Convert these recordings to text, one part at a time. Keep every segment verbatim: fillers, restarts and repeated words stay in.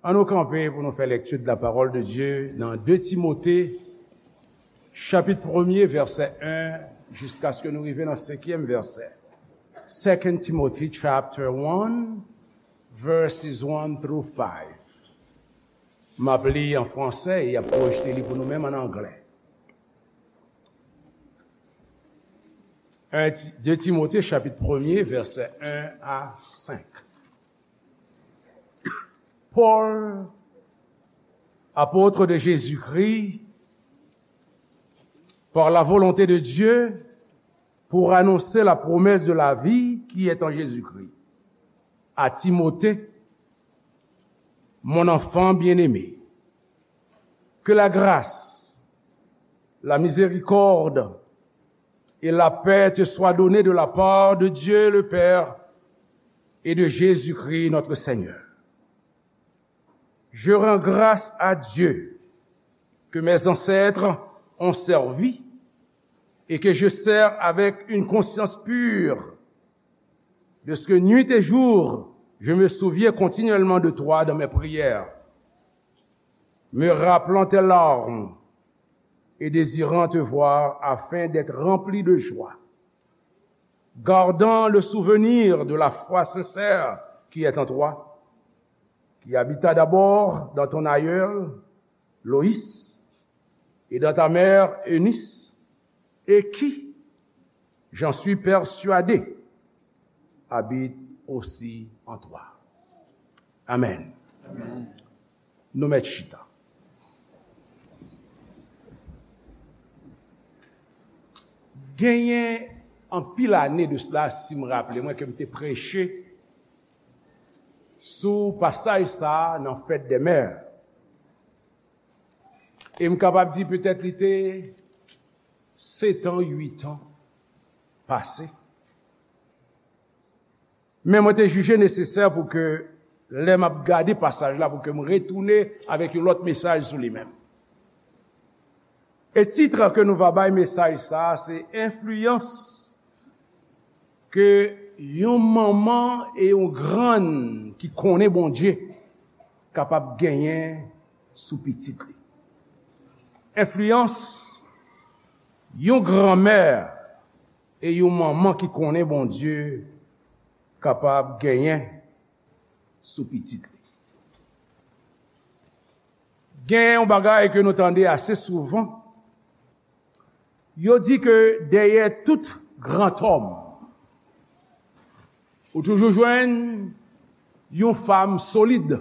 Ann nou kanpe pou nou fè lekti de la parole de Dieu nan de Timote, chapit premye, vèsè en, jiskaske nou rive nan senkyèm vèsè. Second Timothy chapter one, verses one through five. M ap li an fransè e y ap pwojte li pou nou menm an anglè. Un Ti-, de Timote, chapit premye, vèsè en a senk. Paul, apôtre de Jésus-Christ, par la volonté de Dieu, pour annoncer la promesse de la vie qui est en Jésus-Christ. À Timothée, mon enfant bien-aimé, que la grâce, la miséricorde et la paix te soient données de la part de Dieu le Père et de Jésus-Christ notre Seigneur. Je rends grâce à Dieu que mes ancêtres ont servi et que je sers avec une conscience pure, de ce que nuit et jour, je me souviens continuellement de toi dans mes prières, me rappelant tes larmes et désirant te voir afin d'être rempli de joie, gardant le souvenir de la foi sincère qui est en toi, qui habita d'abord dans ton aïeul, Loïs, et dans ta mère, Eunice, et qui, j'en suis persuadé, habite aussi en toi. Amen. Nou mèt chita. Genyen anpil ane de sila, si m raple mwen, ke m te preche sou pasaj sa a nan Fèt dè Mè. E m kapab di petèt li te sèt an, uit an pase. Men mwen te jije nesesè pou ke lè m ap gade pasaj la, pou ke m retounen avèk yon lòt mesaj sou li menm. E tit ke nou va bay mesaj sa a, se enfliyans ke yon manman e yon grann ki konnen Bondye kapab genyen sou pitit li. Enfliyans yon granmè e yon manman ki konnen Bondye kapab genyen sou pitit li. Gen yon bagay ke nou tande ase souvan. Yo di ke dèyè tout grantòm, ou toujou jwenn yon fanm solid.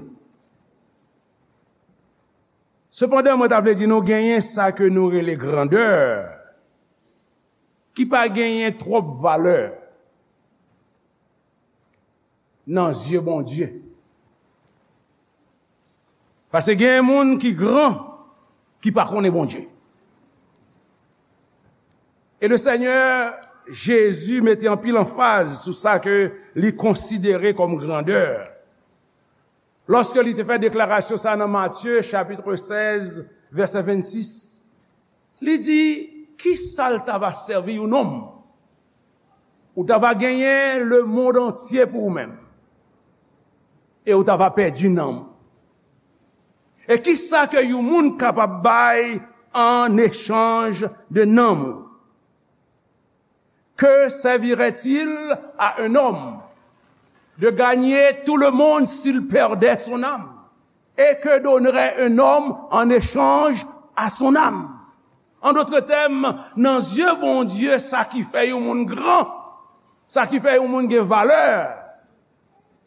Sepandan, mwen ta vle di nou genyen sa ke nou rele grandè, ki pa genyen twòp valè nan zye Bondye. Paske gen moun ki gran, ki pa konnen Bondye. E le Senyè Jezi mete anpil anfaz sou sa ke li konsidere kòm grandè. Lòske li te fè deklarasyon sa nan Matye, chapit sèz, vèsè vennsis, li di, "Ki sa l ta va sèvi yon nonm? Ou ta va genyen lemonn antye pou ou menm, e ou ta va pèdi nanm ou. E ki sa ke yon moun kapab bay an echanj de nanm ou?" Que servirait-il à un homme de gagner tout le monde s'il perdait son âme? Et que donnerait un homme en échange à son âme? En d'autres termes, nan zye Bondye, sa ki fè yon moun gran, sa ki fè yon moun gen valè,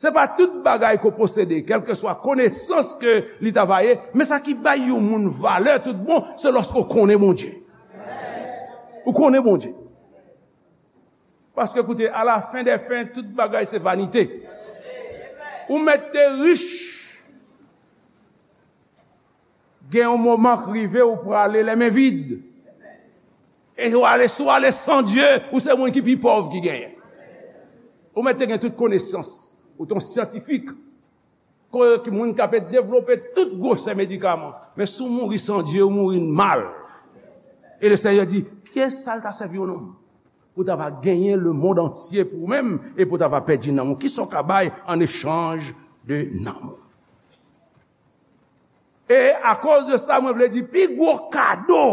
se pa tout bagay ke w posede, kèlkeswa konesans ke li ta va ye, men sa ki bay yon moun valè tout bon, se lòske w konnen Bondye. Ou konnen Bondye. Paske, koute, à la fin des fins, tout bagay se vanite. Ou mèt te rich, gen yon moman k rive ou prale les mains vides. E ou ale, si w ale san Dye, ou se moun ki pi pòv ki genyen. Ou mèt te gen tout konesans, ou te yon syantifik, ke moun k ap devlope tout gwosè medikaman. Men si w mouri san Dye, ou mouri mal. E le Senyè di, ki sa l ta sèvi yon nonm pou ta va genyen lemonn antye pou ou menm e pou ta va pèdi nanm ou? Ki sa w ka bay an echanj de nanm ou? E akoz de sa, mwen vle di, pi gwo kado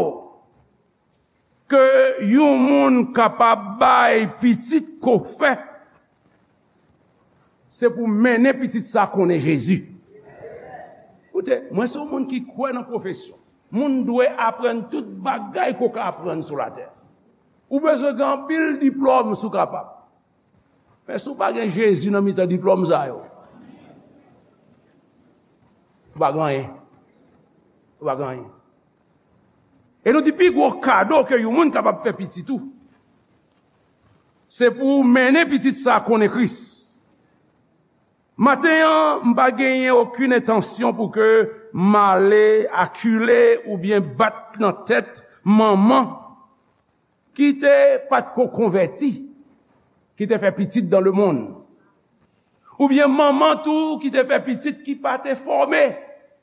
ke yon moun kapab bay pitit ke w fè, se pou mennen pitit sa konnen Jezi. Koute, mwen se yon moun ki kwè nan pwofesyon. Moun dwe aprann tout bagay ke w ka aprann sou latè. Ou bezwen gen anpil diplòm si w kapab. Men si w pa gen Jezi nan mitan diplòm sa yo, ou pa gen anyen. Ou pa gen anyen. E nou di pi gwo kado ke yon moun kapab fè pitit ou, se pou w mennen pitit sa konnen Kris. Maten an, m pa genyen okenn entansyon pou ke m ale akile oubyen bat nan tèt manman ki te pa t ko konvèti, ki te fè pitit dans le monde. Oubyen manman tou ki te fè pitit ki pa te fòme.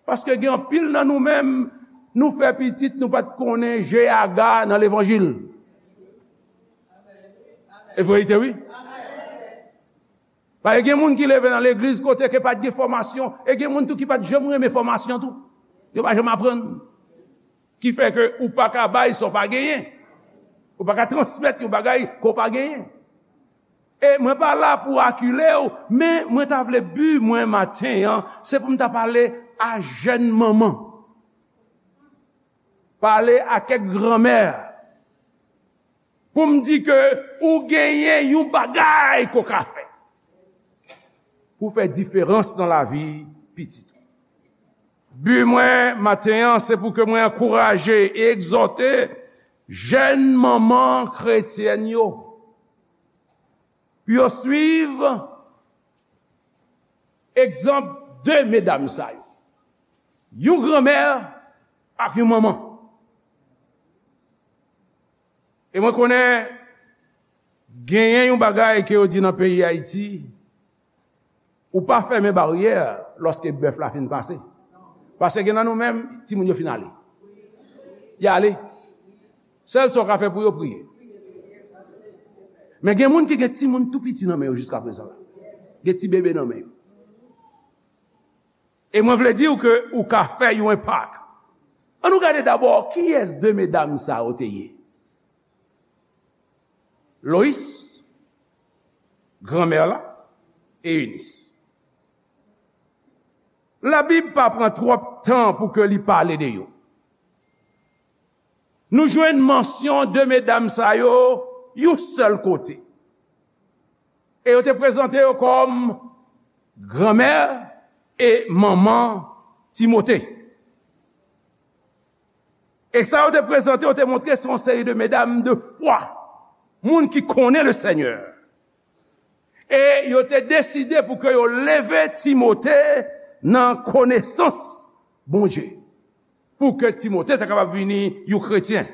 Paske gen anpil nan nou menm, nou fè pitit, nou pa t konnen G A G A nan levanjil. E verite, wi. Paske gen moun ki leve nan legliz kote ke pa t gen fòmasyon, e gen moun tou ki pa t janm renmen fòmasyon tou. Yo pa janm aprann. Ki fè ke ou pa ka bay sa w pa genyen. Ou pa ka transmèt yon bagay ke w pa genyen. E mwen pa la pou akile w, men mwen ta vle bi mwen maten an, se pou m ta pale a jèn manman. Pale a kèk granmè. Pou m di ke ou genyen yon bagay ke w ka fè pou fè diferans nan lavi pitit ou. Bi mwen maten an, se pou ke mwen ankouraje e egzòte jèn manman kretyèn yo pou yo swiv egzanp de medam sa yo. Yon granmè ak yon manman. E mwen konnen genyen yon bagay ke yo di nan peyi Ayiti, ou pa fèmen baryè lòske bèf la fin pase. Paske gen nan nou menm, timoun yo fin ale. Y ale. Sèl sa w ka fè pou yo, priye. Men gen moun ki gen timoun tou piti nan men yo jiskaprezan la. Gen ti bebe nan men yo. E mwen vle di w ke ou ka fè yon enpak. Ann nou gade dabò kiyès de medam sa yo te ye. Lois, granmè la, e Enis. Labib pa pran twòp tan pou ke li pale de yo. Nou jwenn mansyon de medam sa yo yon sèl kote. E yo te prezante yo kòm granmè e manman Timote. E sa yo te prezante, yo te montre se yon seri de medam de fwa, moun ki konnen le Senyè. E yo te deside pou ke yo leve Timote nan konesans Bondye, pou ke Timote ta kapab vini yon kretyen.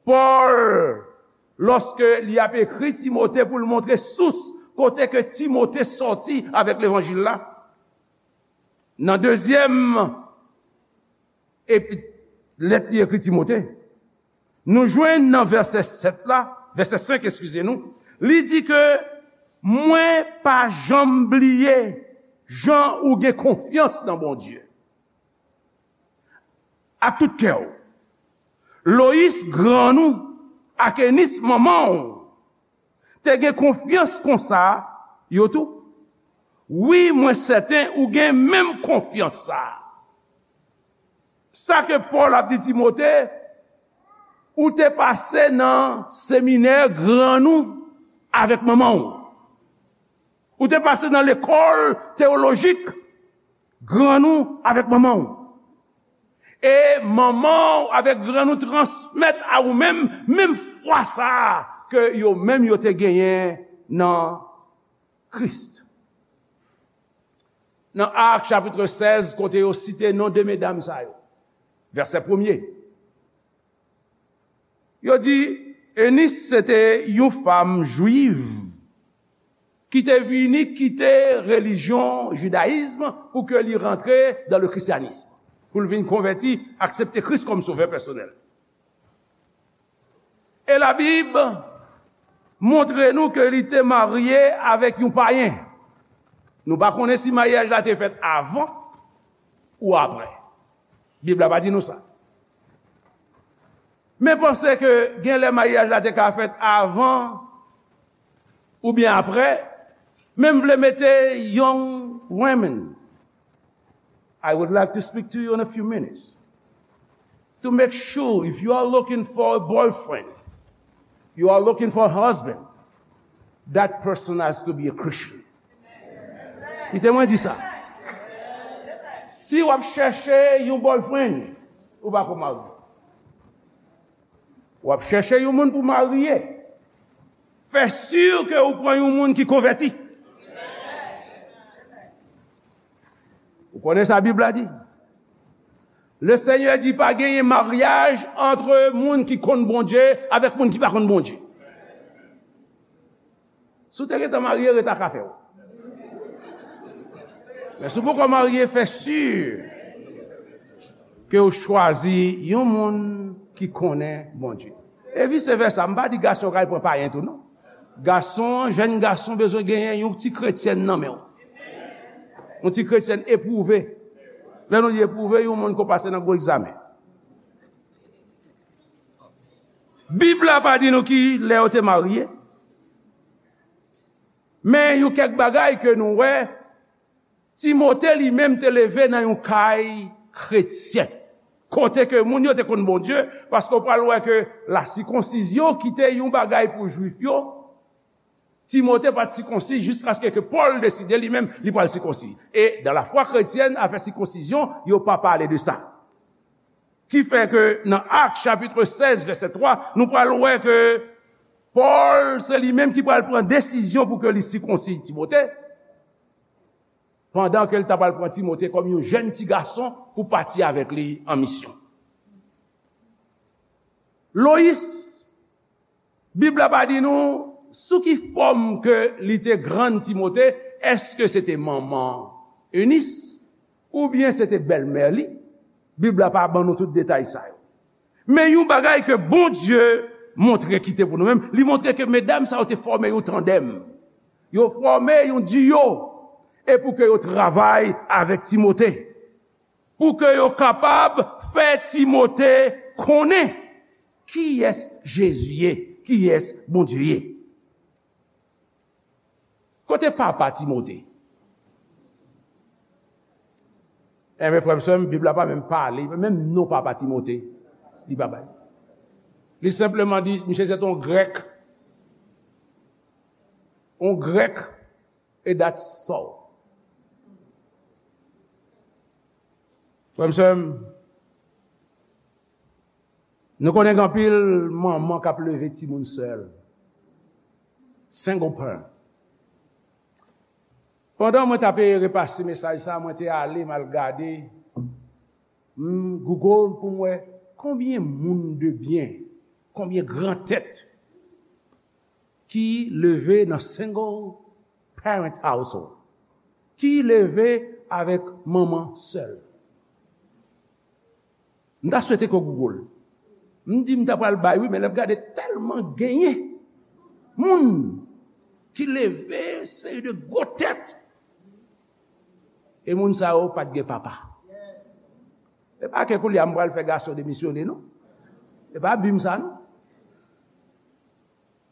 Pòl, lòske li ap ekri Timote pou l montre sous kote ke Timote sòti avèk levanjil la, nan dezyèm epi, lèt li ekri Timote, nou jwenn nan vèsè sèt la, vèsè senk, eskize nou, li di ke, mwen pa janm bliye jan ou gen konfyans nan Bondye ak tout kè w. Loyis, grann ou, ak Enis, manman w, te gen konfyans konsa, yo tou? Wi, mwen sèten ou gen menm konfyans sa a. Sa ke Pòl ap di Timote, ou te pase nan seminè grann ou avèk manman w. Ou te pase nan lekòl teyolojik grann ou avèk manman w. E manman w avèk grann ou transmèt a ou menm, menm fwa sa a ke yo menm yo te genyen nan Kris. Nan Ak chapit sèz, kote yo site non de medam sa yo, vèsè premye, yo di, Enis se te yon fanm jwiv ki te vini kite relijyon jidayizm pou ke li rantre dans le christianisme, pou l vin konvèti, aksepte Kris kòm sovè pèsonèl. E Labib montre nou ke li te marye avèk yon payen. Nou pa konnen si maryaj la te fèt avan ou apre. Bib la pa di nou sa. Men panse ke gen lè maryaj la te ka fèt avan oubyen apre, men m vle mete young women. I would like to speak to you in a few minutes to make sure if you are looking for a boyfriend, you are looking for a husband, that person has to be a Christian. Kite mwen di sa. Si w ap chèche yon boyfriend, ou pa ko marye. W ap chèche yon moun pou marye. Fè si ke ou pran yon moun ki konvèti. Ou konnen sa Bib la di? Le Senyè di pa genyen maryaj antre moun ki konn Bondye avèk moun ki pa konn Bondye. Si w te gentan marye, ret ak afè w. Men si w poko marye, fè si ke w chwazi yon moun ki konnen Bondye. E vise vèsa, m pa di gason yo ka al pran payen tou non. Gason, jèn gason bezwen genyen yon ti kretyèn nan men w. Yon ti kretyèn epwouve. Lè nou di epwouve, yon moun ko pase nan gwo egzamen. Bib la pa di nou ki lè yo te marye. Men yon kèk bagay ke nou wè, Timote li menm te leve nan yon kay kretyen. Kote ke moun yo te konn Bondye, paske w pral wè ke lasikonsizyon ki te yon bagay pou Jwif yo, Timote pa t sikonsi jiskaske ke Pòl deside li menm li pral sikonsi. E dans la foi chrétienne, afè sikonsizyon, yo pa pale de sa. Ki fè ke nan Ak chapit sèz vèsè twa, nou pral wè ke Pòl se li menm ki pral pran desizyon pou ke li sikonsi Timote, pandan ke l ta pral pran Timote kòm yon jèn ti gason pou pati avèk li an misyon. Loyis, Bib la pa di nou sou ki fòm ke li te grann Timote, èske se te manman Enis oubyen se te bèlmè li? Bib la pa ban nou tout detay sa yo. Men yon bagay ke Bondye montre kite pou nou menm, li montre ke medam sa yo te fòme yon tandèm. Yo fòme yon diyo e pou ke yo travay avèk Timote. Pou ke yo kapab fè Timote konnen kiyès Jezi ye, kiyès Bondye ye. Kote papa Timote? Enben, frè m, sè m, Bib la pa menm pale, menm non papa Timote, li pa bay. Li senpleman di, misye se te yon Grèk. Yon Grèk, e that's all. Frè m, sè m, nou konnen gen anpil manman k ap leve timoun sèl. Single parent. Pandan mwen t ap repase mesaj sa, mwen te ale, m al gade, m Google pou m wè konbyen moun de byen, konbyen gran tèt ki leve nan single parent household, ki leve avèk manman sèl. M ta swete ke w Google. M di m ta pral bay wi, men lè m gade tèlman genyen moun ki leve seri de gwo tèt. E moun sa yo pa t gen papa. E pa ke koulye a m pral fè gason demisyone non. E pa bi m sa non.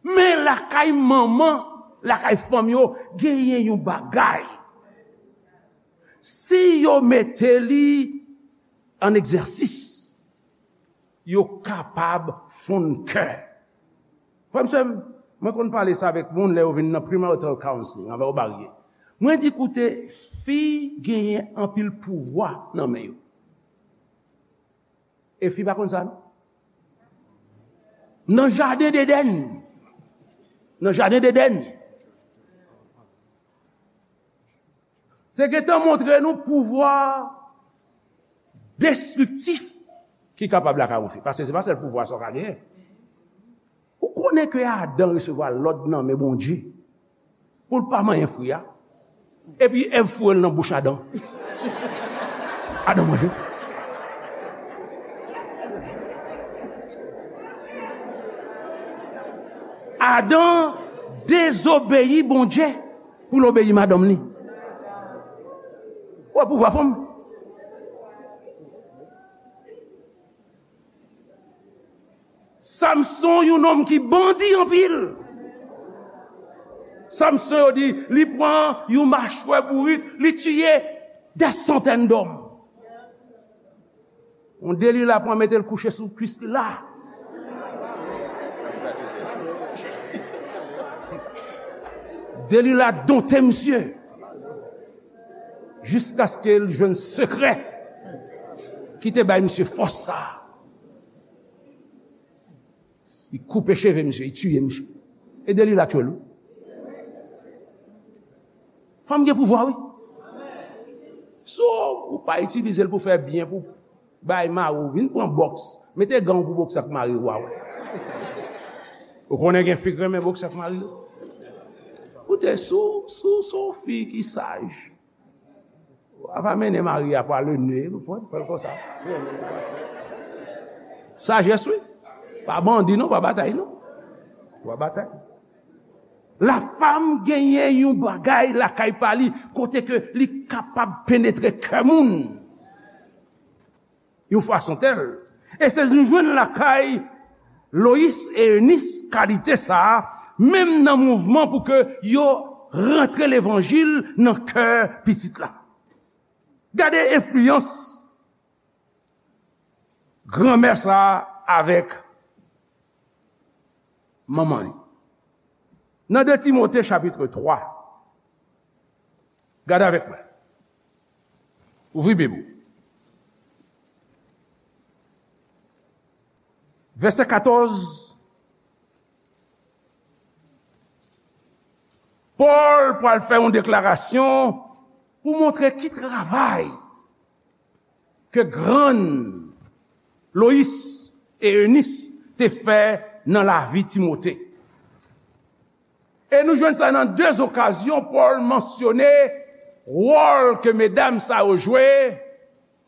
Men lakay manman, lakay fanm yo, genyen yon bagay. Si yo mete li an egzèsis, yo kapab fonn kè. Frè m, sè m, mwen konn pale sa avèk moun lè yo vin nan premarital counseling, anvan yo marye. Mwen di, koute, fi genyen anpil pouvwa nan men yo. E fi pa konn sa non. Nan jaden Edenn. Nan jaden Edenn. Te gentan montre nou pouvwa destriktif ki kapab lakay yon fi. Paske se pa sèl pouvwa sa w ka genyen. Ou konnen ke Adan resevwa lòd nan men Bondye pou l pa manyen fwi a. Epi Èv foure l nan bouch Adan. Adan manje. Adan dezobeyi Bondye pou l obeyi madanm li. Ou wè pouvwa fanm? Samson, yon nonm ki bandi anpil. Samson, yo di, li pran yon machwè bourik, li tiye dè santèn dòm. Yon Delila pran mete l kouche sou kwis li la. Delila donte misye. Jiskaske l jwenn sekrè ki te bay misye fòs sa a. Li koupe cheve misye, li tiye misye. E Delila tchwe l wi. Fanm gen pouvwa wi. So, ou pa itilize l pou fè byen, pou bay mari w, vin pran bòks. Mete gan w pou bòks ak mari w a wè. Ou konnen gen fi k renmen bòks ak mari yo. Koute, sou, sou, sou fi ki saj. Ou ap mennen mari a pa le ne, ou pran, pran l konsa. Sajès wi. Pa bandi non, pa batay non. Pa batay. Lafam genyen yon bagay lakay pa li, kote ke li kapab penetre kè moun. Yon fason tèl. E se nou jwenn lakay Loyis e Enis kalite sa a, menm nan mouvman pou ke yo rantre levanjil nan kè pitit la. Gade enfliyans granmè sa a avèk manman li. Nan de Timote chapit twa, gade avèk mwen. Ouvri Bib ou. Vèsè katòz, Pòl pral fè yon deklarasyon pou montre ki travay ke grann Loyis e Enis te fè nan lavi Timote. E nou jwenn sa nan de okazyon, Pòl mansyone wòl ke medam sa yo jwe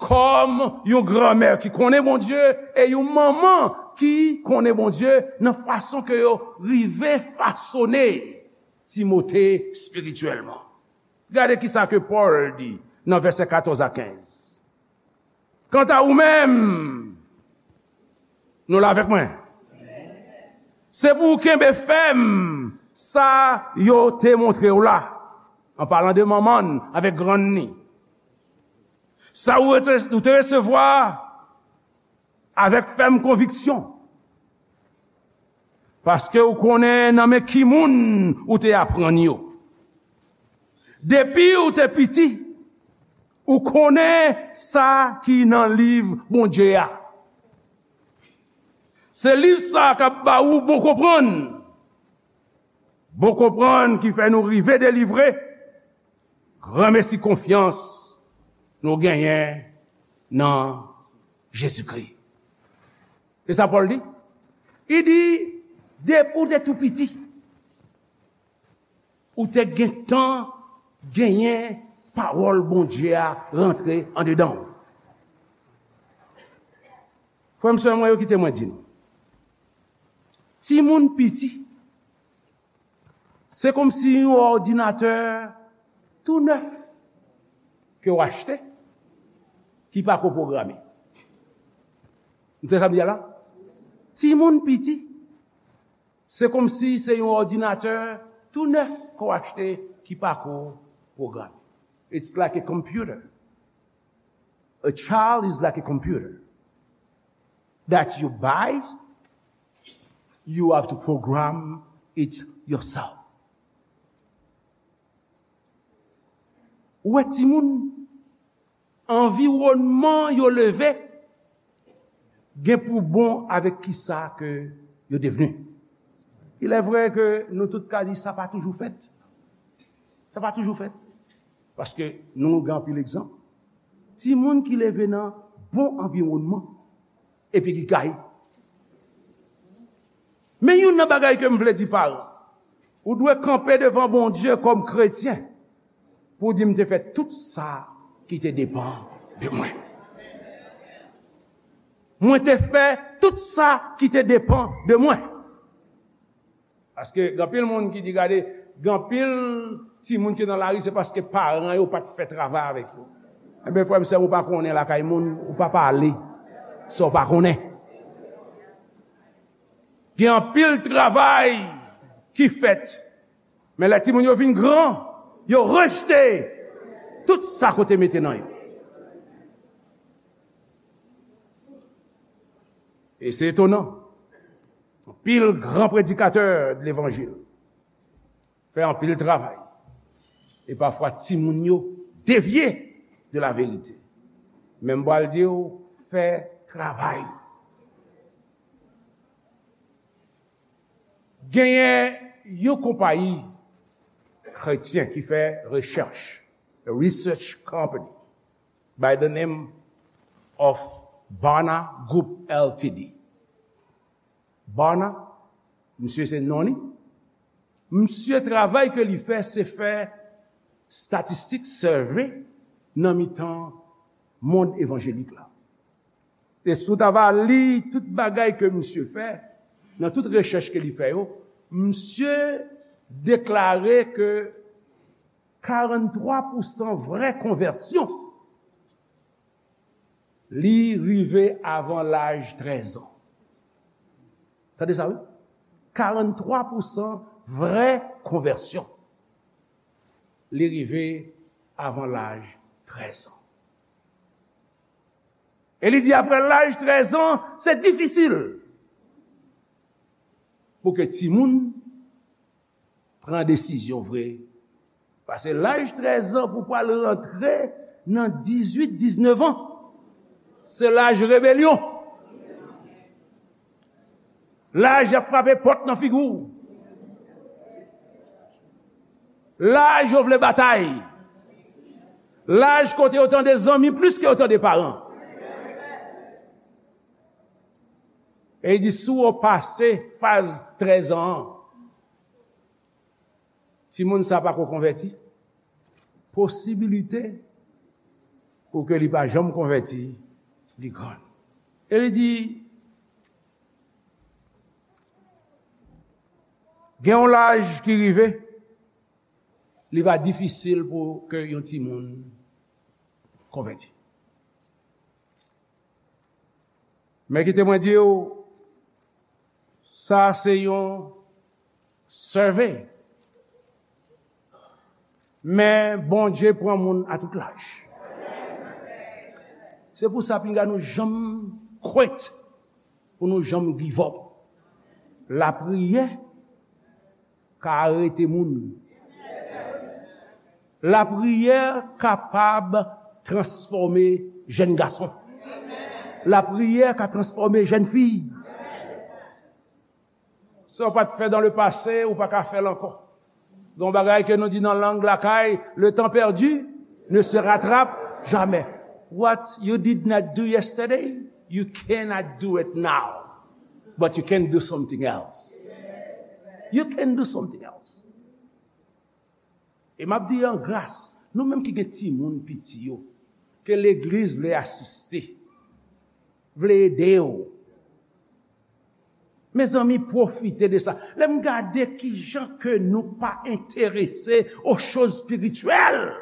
kòm yon granmè ki konnen Bondye e yon manman ki konnen Bondye nan fason ke yo rive fasone Timote espirityèlman. Gade kisa ke Pòl di nan vèsè katòz a kenz. Kanta ou menm, nou la avèk mwen? Se pou w kenbe fèm sa yo te montre w la. An palan de manman n avèk grann ni. Sa ou rete, ou te resevwa avèk fèm konviksyon. Paske ou konnen nan men ki moun ou te aprann yo. Depi ou te piti, ou konnen sa ki nan liv Bondye a. Se liv sa a k ap ba ou bon konprann. Bon konprann ki fè nou rive delivre. Granmesi konfyans nou genyen nan Jezikri. E sa Pòl di? Li di, depi w te tou piti, ou te gentan genyen pawòl Bondye a rantre andedan w. Frè m, sè mwen yo, kite mwen di nou. Timoun piti, se kòmsi yon òdinatè tou nèf ke w achte, ki pako pwograme. Ou tande sa m di a la? Timoun piti, se kòmsi se yon òdinatè tou nèf ke w achte ki pako pwograme. It's like a computer. A child is like a computer that you buy, you have to program it yourself. Ou wè timoun, anviwònman yo leve gen pou bon avèk kisa ke yo devni. Il est vrai ke nou tout ka di sa pa toujou fèt. Sa pa toujou fèt. Paske nou gen anpil egzanp. Timoun ki leve nan bon anviwònman epi ki gaye. Men youn nan bagay ke m vle di paran, ou dwe kanpe devan Bondye kòm kretyen pou w di, "M te fè tout sa ki te depann de mwen. Mwen te fè tout sa ki te depann de mwen." Paske gen anpil moun ki di, gade, gen anpil timoun ki nan lari, se paske paran yo pa t fè travay avèk yo. Enben, frè m, sè m, ou pa konnen lakay moun, ou pa pale sa w pa konnen. Gen anpil travay ki fèt, men lè timoun yo vin gran, yo rejte tout sa ke w te mete nan yo. E se etonan. Anpil gran predikatè de levanjil fè anpil travay. E pafwa, timoun yo devye de la verite. Men m pral di w, fè travay. Genyen yon konpayi kretyen ki fè rechèch, a research company, by the name of Barna Group L T D. Barna, misye se non li. Misye, travay ke li fè, se fè statistik, survey, nan mitan mond evanjelik la. E si w ta va li tout bagay ke misye fè, nan tout rechèch ke li fè yo, misye deklare ke karannntwa pousan vrè konvèsyon, li rive avan laj trèz an. Tande sa, wi. Karannntwa pousan vrè konvèsyon, li rive avan laj trèz an. E li di, apre laj trèz an, se difisil pou ke timoun pran desizyon vre. Pase laj trèz an pou pral rantre nan dizuit, diznèf an, se laj rebelyon. Laj y ap frape pòt nan figi w. Laj yo vle batay. Laj kote yo tande zanmi plis ke yo tande paran. E li di, si w pase faz trèz an an, timoun sa pa ko konvèti, posibilite pou ke li pa janm konvèti, li gran. E li di, gen yon laj ki rive, li va difisil pou ke yon timoun konvèti. Men kite mwen di w, sa se yon survey. Men Bondye pran moun a tout laj. Se pou sa, pinga nou janm kwit, pou nou janm give up. Lapriyè ka arete moun. Lapriyè kapab transfòme jèn gason. Lapriyè ka transfòme jèn fi. Sa w pa t fè dans le passé, ou pa ka fè l ankò. Gen yon bagay ke nou di nan lang lakay, le temps perdu ne se rattrape jamais. What you did not do yesterday, you cannot do it now. But you can do something else. You can do something else. E m ap di an gras, nou menm ki gen timoun piti yo, ke legliz vle asiste, vle ede yo. Mezanmi, pwofite de sa. Lè m gade kijan ke nou pa enterese aux choses spirituelles.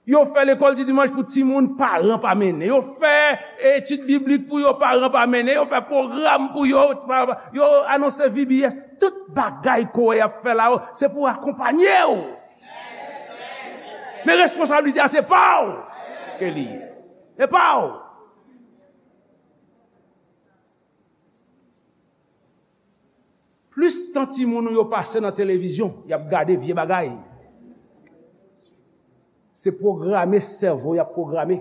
Yo fè lekòl di dimanch pou timoun, paran pa mennen. Yo fè etid biblik pou yo, paran pa mennen. Yo fè pwogram pou yo, pa, yo anonse V B S. Tout bagay ke w wè y ap fè la yo, se pou akonpanye w. Men responsablite a se pa w ke li ye. Se pa w. Plis tan timoun ou yo pase nan televizyon, y ap gade vye bagay. Se pwograme sèvo y ap pwograme.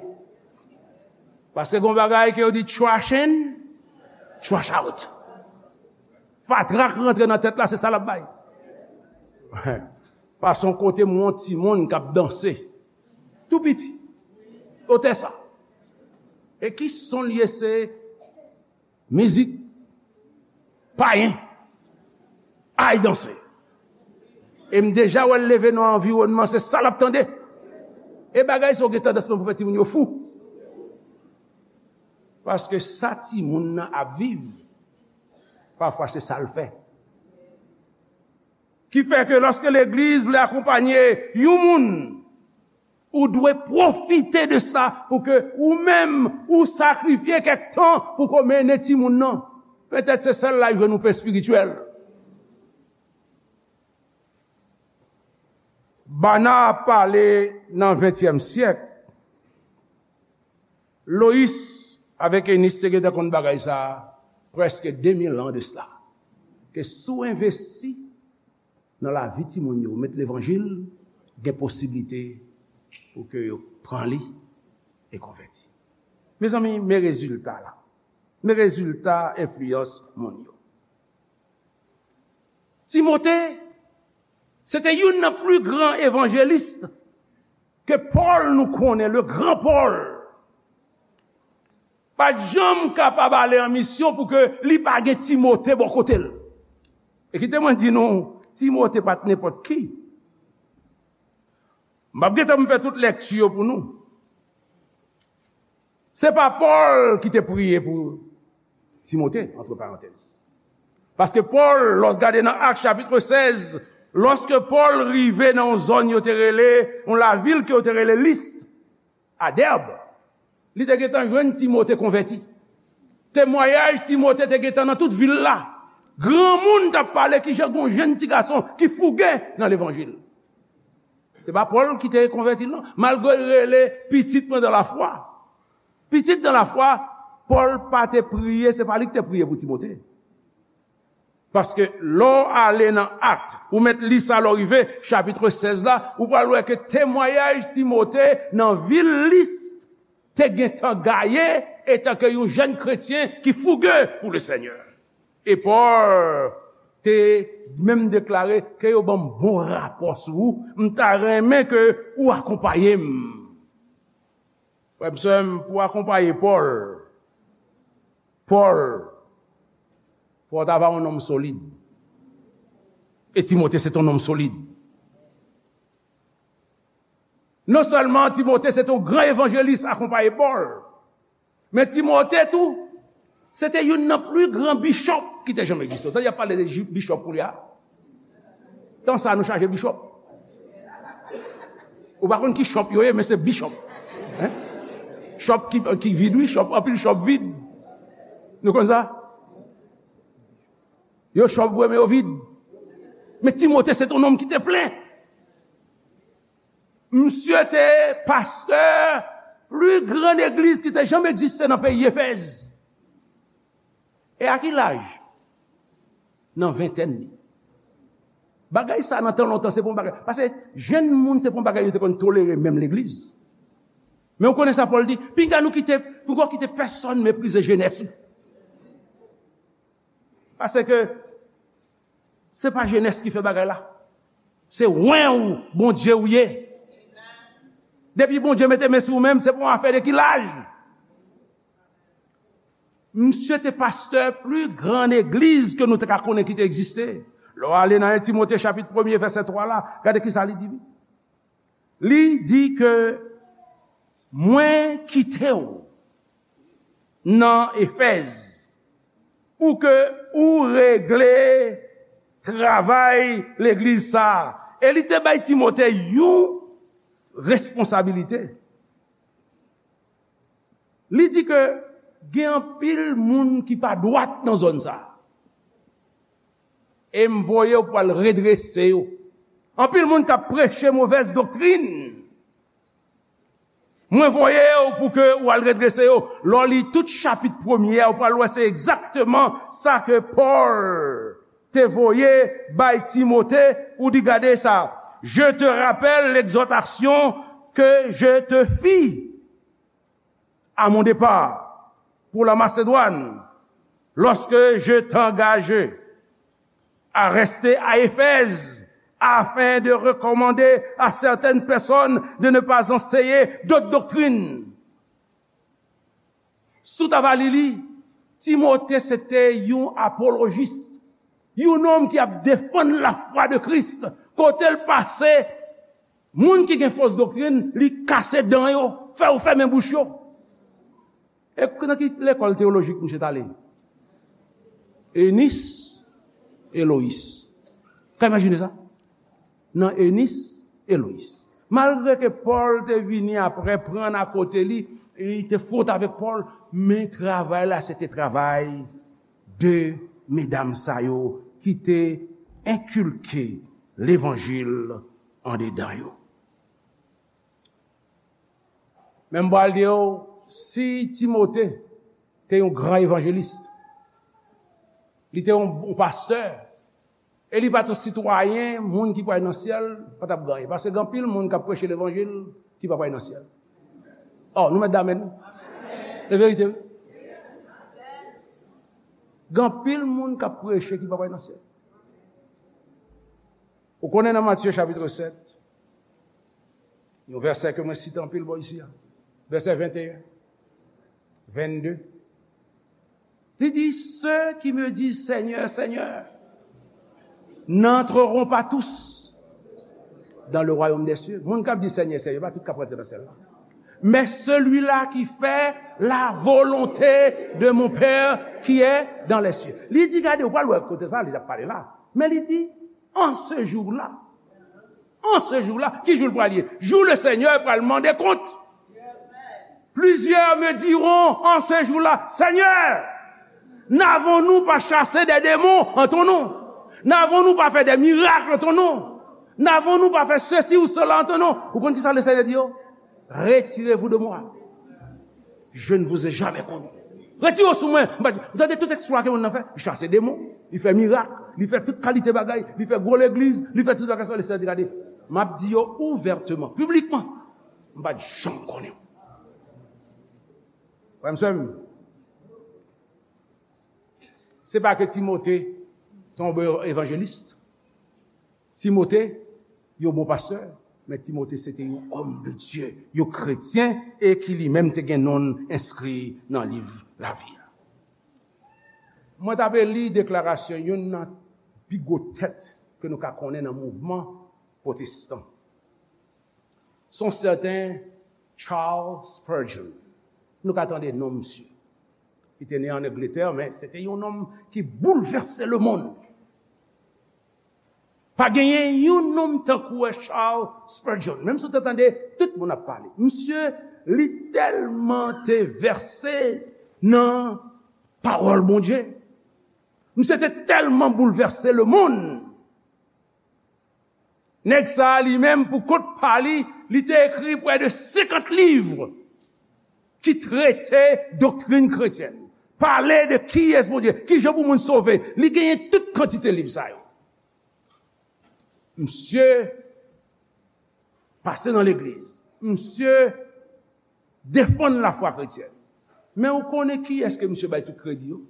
Paske gen yon bagay ke yo di trash in, trash out. Fatra k rantre nan tèt la, se sa l ap bay. Pase yon kote, m wè yon timoun k ap danse. Tou piti. Otè sa. E ki son l ye? Se mizik payen. Ay danse. E m deja wè l leve nan anviwònman, se sa l ap tande. E bagay sa yo gen tandans pou fè timoun yo fou. Paske sa timoun nan ap viv, pafwa se sa l fè. Ki fè ke lòske legliz vle akonpanye yon moun, ou dwe pwofite de sa pou ke ou menm, ou sakrifye kèk tan pou ke w mennen timoun nan. Petèt se sèl la yo jwenn yon pe espirityèl. Bana ap pale nan ventyèm syèk. Loyis avèk Enis te gentan konn bagay sa a prèske de mil an de sila. Ke si w envesti nan lavi timoun yo, met levanjil, gen posiblite pou ke yo pran li e konvèti. Mezanmi, men rezilta la. Men rezilta enfliyans moun yo. Timote, se te youn nan pli gran evanjelis ke Pòl nou konnen, le gran Pòl. Pa t janm kapab ale an misyon pou ke li pa gen Timote bò kote l. E kite mwen di nou, Timote pa t nenpòt ki. M p ap gentan m fè tout lèkti yo pou nou. Se pa Pòl ki te priye pou Timote, antre parantèz. Paske Pòl, lòs gade nan Ak chapit sèz, lòske Pòl rive nan yon zòn yo te rele, yon lavil ke yo te rele Lis, a Dèb, li te gentan jwenn Timote konvèti. Temwayaj Timote te gentan nan tout vil la. Granmoun t ap pale kijan gon jenn ti gason ki fouge nan levanjil. Se pa Pòl ki te konvèti l, non. Malgre l rele pitit mwen dan lafwa. Pitit dan lafwa, Pòl pa te priye, se pa li ki te priye pou Timote. Paske lè w ale nan Ak, ou mèt li sa lè w rive, chapit sèz la, ou pral wè ke temwayaj Timote nan vil Lis te gentan gaye etanke yon jèn kretyen ki fouge pou le Senyè. E Pòl te menm deklare ke yo ban m bon rapò sou ou, m ta renmen ke ou akonpaye m. Frè m, sè m, pou akonpaye Pòl, Pòl, fò w ta va yon nonm solid. E Timote se t yon nonm solid. Non sèlman Timote se t yon gran evanjelis akonpaye Pòl, men Timote tou, se te youn nan pli gran bichòp ki te janm egziste. Ou tande y ap pale de ji-, bichòp koulye a? Tan sa nou chaje bichòp. Ou pa konn ki chòp yo ye, men se bichòp. Hein? Chòp ki, ki vid, wi, chòp, anpil chòp vid. Nou konn sa? Yo chòp vre, men yo vid. Men Timote se t yon nonm ki te plen. Misye te pastè pli gran legliz ki te janm egziste nan peyi Efèz. E a ki laj? Nan ventèn li. Bagay sa nan tan lontan, se pa yon bagay. Paske jenn moun, se pa yon bagay yo te konn tolere menm legliz. Men ou konnen sa Pòl di, pinga nou kite, pinga w kite pèsonn meprize jenès ou. Paske se pa jenès ki fè bagay la. Se wen ou, Bondye ou ye. Depi Bondye mete men sou ou menm, se pa yon afè de ki laj. Misye te pastè pli gran legliz ke nou te ka konnen ki te egziste. Lè w ale nan en Timote chapit premye vèsè twa la, gade ki sa li di. Li di ke mwen kite w nan Efèz pou ke ou regle travay legliz sa a. E li te bay Timote yon responsabilite. Li di ke gen anpil moun ki pa dwat nan zòn sa a. E m voye w pou al redrese yo. Anpil moun k ap preche movèz doktrin. Mwen voye w pou ke w al redrese yo. Lè w li tout chapit premye a, ou pral wè se egzakteman sa ke Pòl te voye bay Timote pou di, gade sa, je te rappelle l'exhortation que je te fis à mon départ pour la Macédoine, lorsque je t'engageai à rester à Éphèse, afin de recommander à certaines personnes de ne pas enseigner d'autres doctrines. Si w ta va li li, Timote se te yon apolojis, yon nonm ki ap defann lafwa de Kris. Kote l pase, moun ki gen fos doktrin, li kase dan yo, fè yo fèmen bouch yo. E nan ki lekòl teyolojik misye t ale? Enis e Loyis. Ka imajine sa? Nan Enis e Loyis. Malgre ke Pòl te vini apre, pran akote li, e li te fwot avèk Pòl, men travay la, se te travay de medam sa yo ki te enkilke levanjil andedan yo. Men m pral di w, si Timote te yon gran evanjelis, li te yon, yon pastè, e li pa t yon sitwayen, moun ki pral nan syèl, pa t ap gen anyen. Paske gen anpil moun k ap preche levanjil ki pa pral nan syèl. Oh, nou mèt damèn. Se verite, wi. Gen anpil moun k ap preche ki pa pral nan syèl. Ou konnen nan Matye chapit sèt, yon vèsè ke mwen site anpil bò isi a, vèsè venteyen, vennde. Li di, ceux qui me disent, Seigneur, Seigneur, n'entreront pas tous dans le royaume des cieux. Moun k ap di Senyè, Senyè, pa tout k ap rantre nan syèl la. Mais celui-là qui fait la volonté de mon Père qui est dans les cieux. Li di, gade, ou pral wè kote sa, li ap pale la. Men li di, en ce jour-là, en ce jour-là, ki jou l pral ye? Jou le Senyè pral mande kont. Plusieurs me diront en ce jour-là, Seigneur, n'avons-nous pas chassé des démons en ton nom? N'avons-nous pas fait des miracles en ton nom? N'avons-nous pas fait ceci ou cela en ton nom? Ou konn ki sa le Senyè di yo? Retirez-vous de moi. Je ne vous ai jamais connu. Retire w sou mwen. M pa, m tande tout eksplwa ke moun nan fè. Li chase demon, li fè mirak, li fè tout kalite bagay, li fè gwo legliz, li fè tout bagay sa, le Senyè di, gade, m ap di yo ouvèteman, piblikman, m pa t janm konnen w. Frè m, sè m, se pa ke Timote te yon bon evanjelis. Timote, yon bon pastè, men Timote se te yon homme de Dieu, yon kretyen, e ki li menm te gen non l enskri nan liv lavi a. Mwen t ape li deklarasyon youn nan pi gwo tèt ke nou ka konnen nan mouvman pwotestan. Se yon sèten Charles Spurgeon. Nou ka tande non misye. Li te ne ann Angletè, men se te yon nonm ki boulvèse lemonn. Pa genyen yon nonm tankou Charles Spurgeon. Menm si w te tande tout moun ap pale. Misye, li tèlman te vèse nan pawòl Bondye. Misye te tèlman boulvèse lemonn. Nèg sa a li menm, pou kont pa li, li te ekri près de senkant liv ki trete doktrin kretyèn. Pale de kiyès Bondye, kijan pou moun sove. Li genyen tout kantite liv sa yo. Misye pase nan legliz. Misye defann lafwa kretyèn. Men ou konnen kiyès ke misye bay tout kredi yo?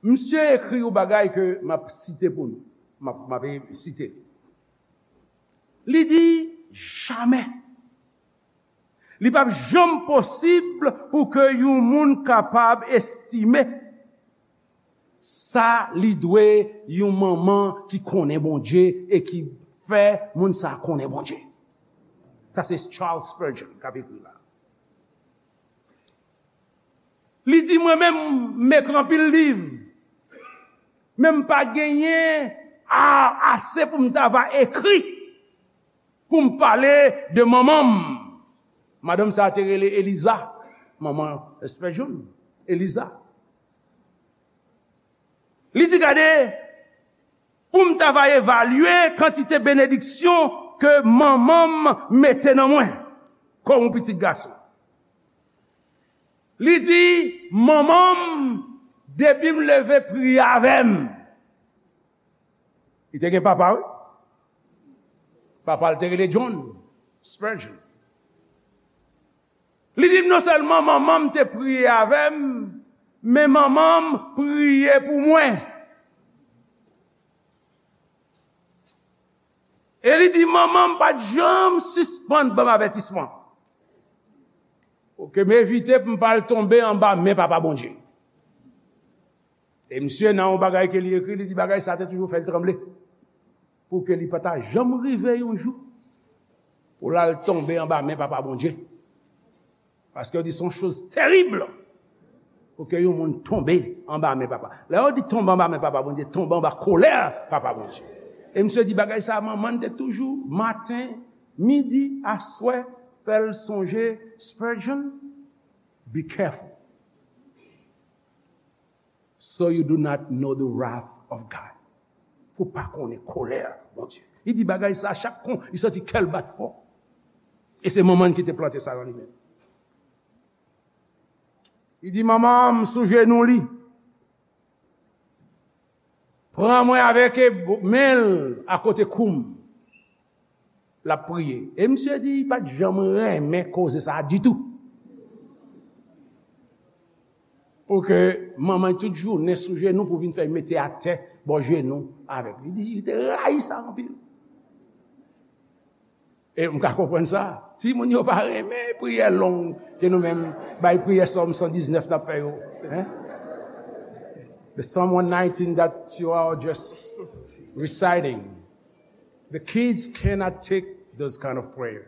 Misye ekri yon bagay ke m ap site pou nou. M ap, m ap site. Li di, jamè. Li p ap janm posib pou ke yon moun kapab estime sa li dwe yon manman ki konnen Bondye e ki fè moun sa konnen Bondye. Sa se Charles Spurgeon k ap ekri la. Li di, mwen menm, m ekri anpil liv, men m pa genyen a-, ase pou m ta va ekri, pou m pale de manman m. Madanm sa a te rele Eliza, manman Spurgeon, Eliza. Li di, gade, pou m ta va evalye kantite benediksyon ke manman m mete nan mwen, kòm yon pitit gason. Li di, manman m, depi m leve, priye avè m. Li te gen papa, wi. Papa l te rele John Spurgeon. Li di m, non sèlman manman m te priye avè m, men manman m priye pou mwen. E li di, manman m pa t janm sispann ban m avètisman pou ke m evite pou m pa al tonbe anba men Papa Bondye. E misye, nan yon bagay ke li ekri, li di bagay sa te toujou fè l tranble. Pou ke li pa ta janm rive yon jou pou l al tonbe anba men Papa Bondye. Paske yo di se yon choz terib pou ke yon moun tonbe anba men Papa. Lè yo di tonbe anba men Papa Bondye, tonbe anba kolè Papa Bondye. E misye di bagay sa, manman l te toujou, maten, midi, aswè, fè l sonje Spurgeon, be careful. So you do not know the wrath of God. Pou pa konnen kolè Bondye. Li di bagay sa, chak kon, li santi kè l bat fò. E se manman ki te plante sa nan li menm. Li di, "Manman, m sou jenou li. Pran mwen avèk e bo-, men l akote kou m." L ap priye. E misye di, li pa t janm renmen koze sa a ditou. Pou ke manman l tout jounen sou jenou pou vin fè l mete atè bò jenou avèk li. Li di, li te rayi sa anpil. E m ka konprann sa. Timoun yo pa renmen priyè long ke nou menm bay priyè Sòm san diznèf n ap fè yo. Hein? The Psalm one nineteen that you are just reciting. The kids cannot take those kind of prayer.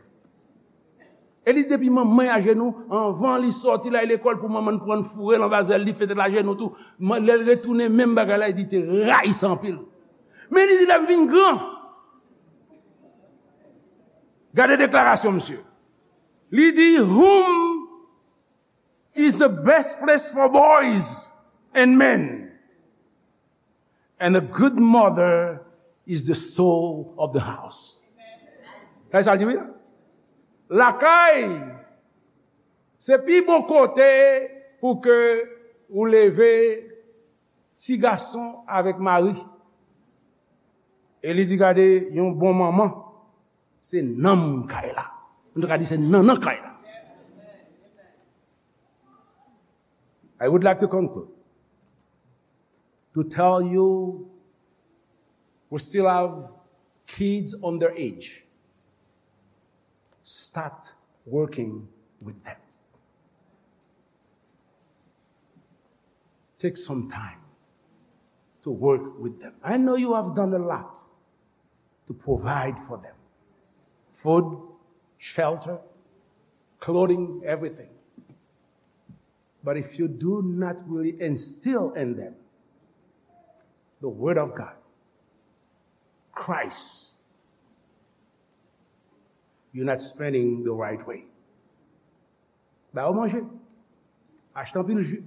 E li depi manman ajenou, anvan li sòti l al lekòl pou manman l pran l foure l anba zèl li, fete l ajenou tou. Man, lè l retounen, menm bagay la, li di te rayi sa anpil. Men li di, "Lè m vin gran." Gade deklarasyon misye. Li di, "Home is the best place for boys and men. And a good mother is the soul of the house." Sa sa l di, wi. Lakay, se pi bon kote pou ke ou leve ti gason avèk mari. E li di, "Gade, yon bon manman, se nanm kay la." Nou ka di, "Se nannan kay la." I would like to conclude to tell you, we still have kids on their age. Start working with them. Take some time to work with them. I know you have done a lot to provide for them. Food, shelter, clothing, everything. But if you do not really instill in them the word of God, Christ, you're not spending the right way. Ba yo manje. Achte anpil ji.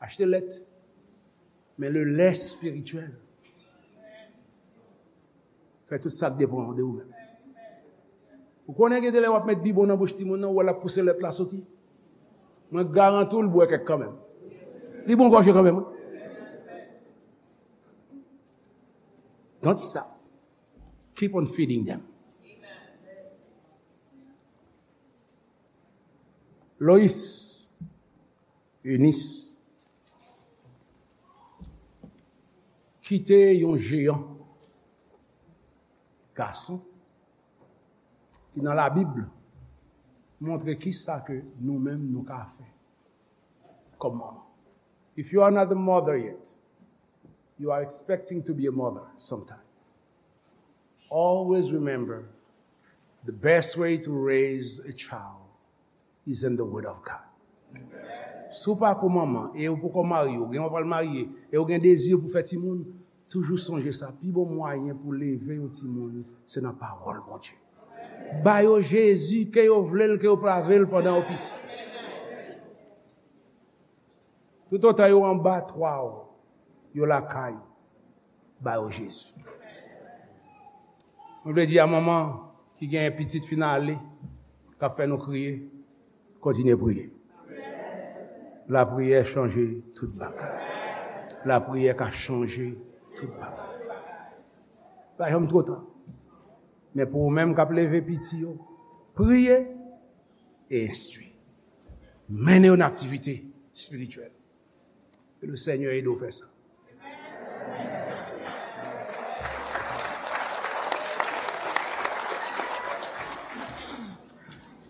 Achte lèt. Men le lè espirityèl, fè tout sa k depann de ou menm. Ou konnen gen de lè w ap met bibwon nan bouch timoun nan, ou wè l ap pouse lèt la soti. Mwen garanti w l bwè kèk kanmenm. Li bon gòje kanmenm, wi. Don't stop. Keep on feeding them. Lois, Eunice, kite yon jeyan gason ki nan Labib montre kisa ke nou menm nou ka fè kòm manman. If you are not a mother yet, you are expecting to be a mother sometime. Always remember, the best way to raise a child is in the word of God. Si w pa ko manman, e ou poko marye, ou gen w pral marye, e ou gen dezi pou fè timoun, toujou sonje sa, pi bon mwayen pou leve yon timoun, se nan pawòl Bondye. Ba yo Jezi, ke yo vle l, ke yo pa vle l, pandan yo piti. Toutotan yo anba twa w, yo lakay, ba yo Jezi. Mwen vle di a manman ki gen pitit fin ale, k ap fè nou kriye, kontinye priye. Lapriyè chanje tout bagay. Lapriyè ka chanje tout bagay. Pa janm twò ta. Men pou ou menm k ap leve piti yo, priye e enstwi. Mennen yo nan aktivite espirityèl. Ke le Senyè ede w fè sa.